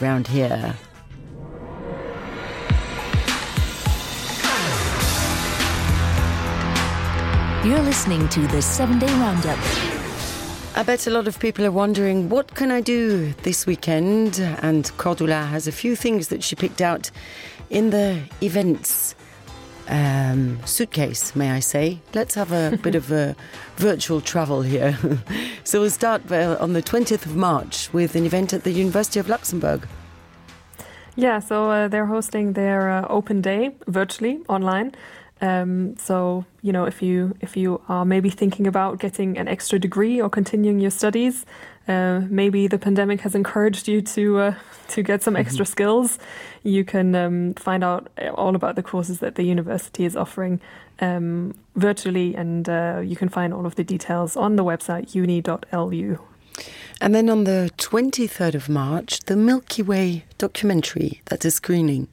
round here. You're listening to the 7-Day Roundup. I bet a lot of people are wondering, what can I do this weekend? And Cordula has a few things that she picked out in the events suitcase, may I say. Let's have a bit of a virtual travel here. So we'll start on the 20th of March with an event at the University of Luxembourg. Yeah, so they're hosting their open day virtually online. So, you know, if you are maybe thinking about getting an extra degree or continuing your studies, maybe the pandemic has encouraged you to get some extra skills. You can find out all about the courses that the university is offering virtually, and you can find all of the details on the website uni.lu. And then on the 23rd of March, the Milky Way documentary, that's a screening.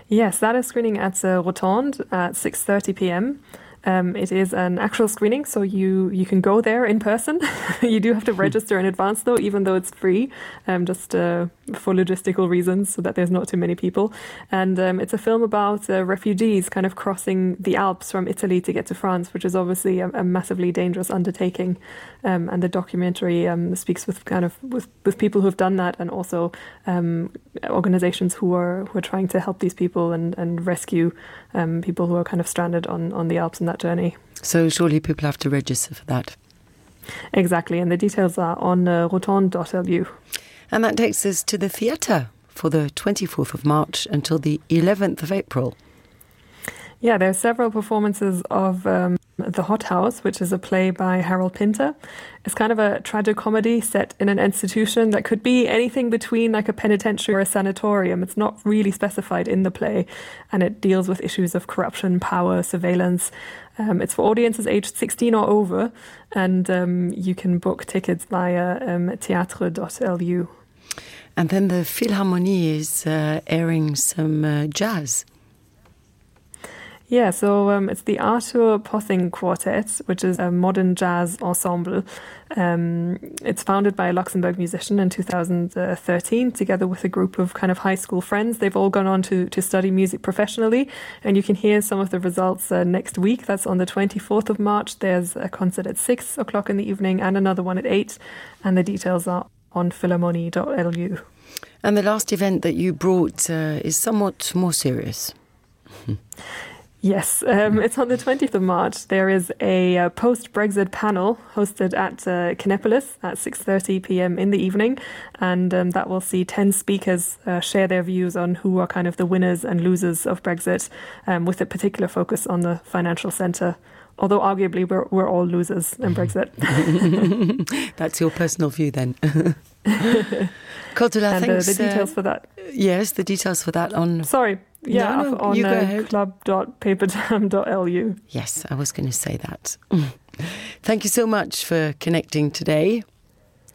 Yes, that is screening at Rotonde at 6:30 p.m. It is an actual screening, so you can go there in person. You do have to register in advance, though, even though it's free, just for logistical reasons, so that there's not too many people. And it's a film about refugees kind of crossing the Alps from Italy to get to France, which is obviously a massively dangerous undertaking. And the documentary speaks with with people who have done that, and also organizations who are trying to help these people and rescue people who are kind of stranded on the Alps in that journey. So surely people have to register for that. Exactly, and the details are on rotonde.lu. And that takes us to the theatre for the 24th of March until the 11th of April. Yeah, there are several performances of The Hot House, which is a play by Harold Pinter. It's kind of a tragicomedy set in an institution that could be anything between like a penitentiary or a sanatorium. It's not really specified in the play, and it deals with issues of corruption, power, surveillance. It's for audiences aged 16 or over, and you can book tickets via theatre.lu. And then the Philharmonie is airing some jazz. Yeah, so it's the Arthur Pothing Quartet, which is a modern jazz ensemble. It's founded by a Luxembourg musician in 2013, together with a group of kind of high school friends. They've all gone on to study music professionally, and you can hear some of the results next week. That's on the 24th of March. There's a concert at 6 o'clock in the evening and another one at 8, and the details are on philharmonie.lu. And the last event that you brought is somewhat more serious. Yes, it's on the 20th of March. There is a post-Brexit panel hosted at Kinepolis at 6:30 p.m. in the evening, and that will see 10 speakers share their views on who are kind of the winners and losers of Brexit, with a particular focus on the financial centre. Although arguably we're all losers in Brexit. That's your personal view then. Cordula, and thanks. The details for that. Yes, the details for that on... Sorry. Yeah, no, on club.paperdam.lu. Yes, I was going to say that. Thank you so much for connecting today,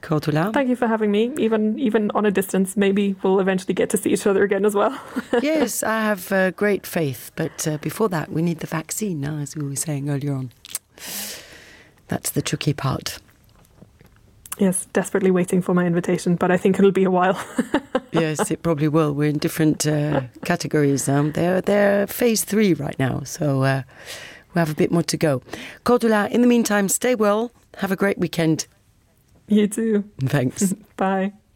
Cordula. Thank you for having me. Even on a distance, maybe we'll eventually get to see each other again as well. Yes, I have great faith. But before that, we need the vaccine now, as we were saying earlier on. That's the tricky part. Yes, desperately waiting for my invitation, but I think it'll be a while. Yes, it probably will. We're in different categories. They're phase 3 right now, so we have a bit more to go. Cordula, in the meantime, stay well. Have a great weekend. You too. Thanks. Bye.